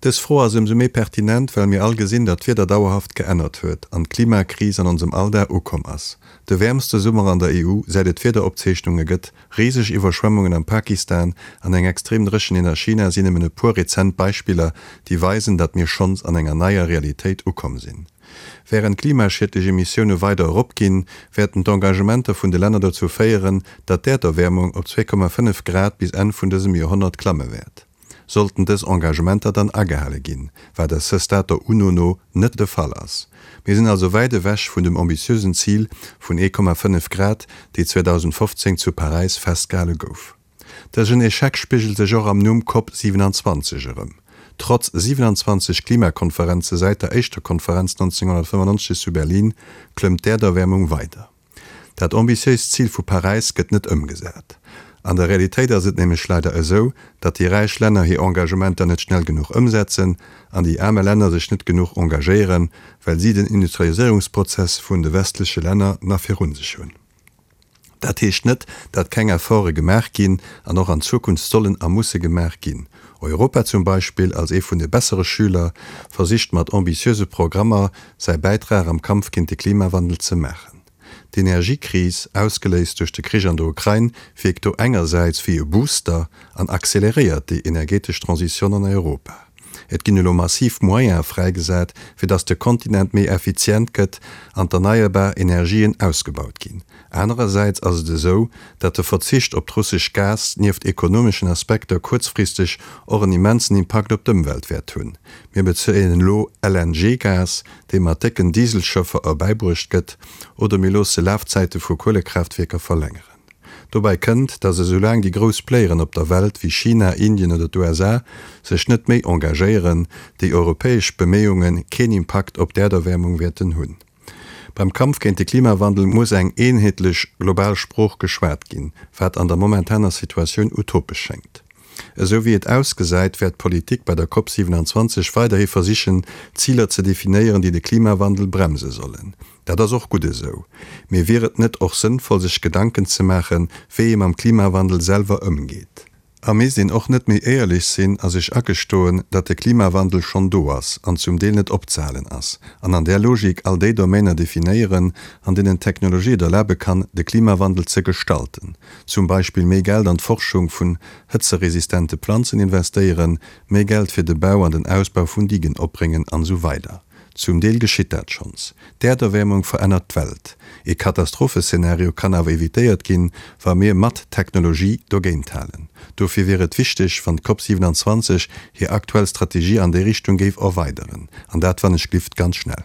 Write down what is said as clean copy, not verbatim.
Dës Fro ass ëmsou méi pertinent, well mir all gesinn, datt d'Wieder dauerhaft geännert huet an d'Klimakris an onsem Alldag ukomm ass. De wäermste Summer an der EU, säit et Wiederopzeechnunge gëtt, riseg Iwwerschwemmungen am Pakistan an eng extrem Dréchenheet a China sinn nëmmen e puer rezent Beispiller, déi weisen, datt mir schonns an enger neier Realitéit ukomm sinn. Wärend d'klimaschiedlech Emissioune weider eropginn, wäerten d'Engagementer vun de Länner dozou féieren, datt d'Äerderwäermung op 2,5 Grad bis Enn vun dësem Joerhonnert klamme wäert. Sollten dës Engagementer dann agehale ginn, wat à ce stade der UNO no net de Fall ass. Mir sinn also wäit ewech vun dem ambitiösen Zil vun 1,5 Grad, déi 2015 zu Paräis festgehale gouf. Dësen Echec spigelt sech och am Numm Cop 27 erëm. Trotz 27 Klimakonferenze säit der éischter Konferenz 1995 zu Berlin klëmmt d'Äerderwäermung weider. Dat ambitiéist Zil vu Paräis gëtt net ëmgesat. An der Realitéit ass et nämlech leider esou, datt déi räich Länner hir Engagementer net schnell genuch ëmsetzen an déi aarme Länner sech net genuch engagéieren, well si den Industrialiséierungsprozess vun de westleche Länner nach virun sech hunn. Dat heescht net, datt keng Efforte gemaach ginn an och an Zukunft sollen a musse gemaach ginn. Europa zum Beispill, als ee vun de bessere Schüler, versicht mat ambitiöse Programmer säi Bäitrag am Kampf géint de Klimawandel ze maachen. D'Energiekris, ausgeléist duerch de Krich an der Ukrain, wierkt do engersäits wéi e Booster an acceleréiert déi energetesch Transition an Europa. Et ginn elo massiv Moyene fräigesat, fir datt de Kontinent méi effizient gëtt an d'erneierbar Energien ausgebaut ginn. Anerersäits ass et esou, datt de Verzicht op d'russesch Gas nieft ekonomeschen Aspekter kuerzfristeg och en immensen Impakt op d'Ëmwelt wäert hunn. Mir bezéien elo LNG-Gas, dee mat décken Dieselschëffer erbäibruecht gëtt, oder mir loosse Lafzäite vu Kuelekraaftwierker verlängeren. Dobäi kënnt, datt esoulaang déi grouss Playeren op der Welt wéi China, Indien oder d'USA sech net méi engagéieren, déi europäesch Beméiunge keen Impakt op d'Äerderwäermung wäerten hunn. Beim Kampf géint de Klimawandel muss eng eenheetlech global Sprooch geschwat ginn, wat an der momentaner Situatioun utopesch schéngt. Esou wéi et ausgesäit, wäert d'Politik bei der Cop 27 weiderhi versichen, Ziler ze definéieren, déi de Klimawandel bremse sollen. Dat ass och gutt esou. Mee wier et net och sënnvoll sech Gedanken ze maachen, wéi ee mam Klimawandel selwer ëmgeet? A misst een och net méi éierlech sinn a sech agestoen, datt de Klimawandel schonn do ass an zum Deel net opzehalen ass, an an där Logik all déi Domainer definéieren, an deenen d'Technologie et erlabe kann, de Klimawandel ze gestalten, zum Beispill méi Geld an d'Forschung vun hëtzeresistente Planzen investéieren, méi Geld fir de Bau an den Ausbau vun Digen opbréngen an esou weider. Zum Deel geschitt dat schonns. D'Äerderwäermung verännert d'Welt. Ee Katastropheszenario kann awer evitéiert ginn, wa mir mat Technologie dogéint halen. Dofir wier et wichteg, wann d'Cop 27 hir aktuell Strategie an déi Richtung géif erweideren. An dat wann ech glift ganz schnell.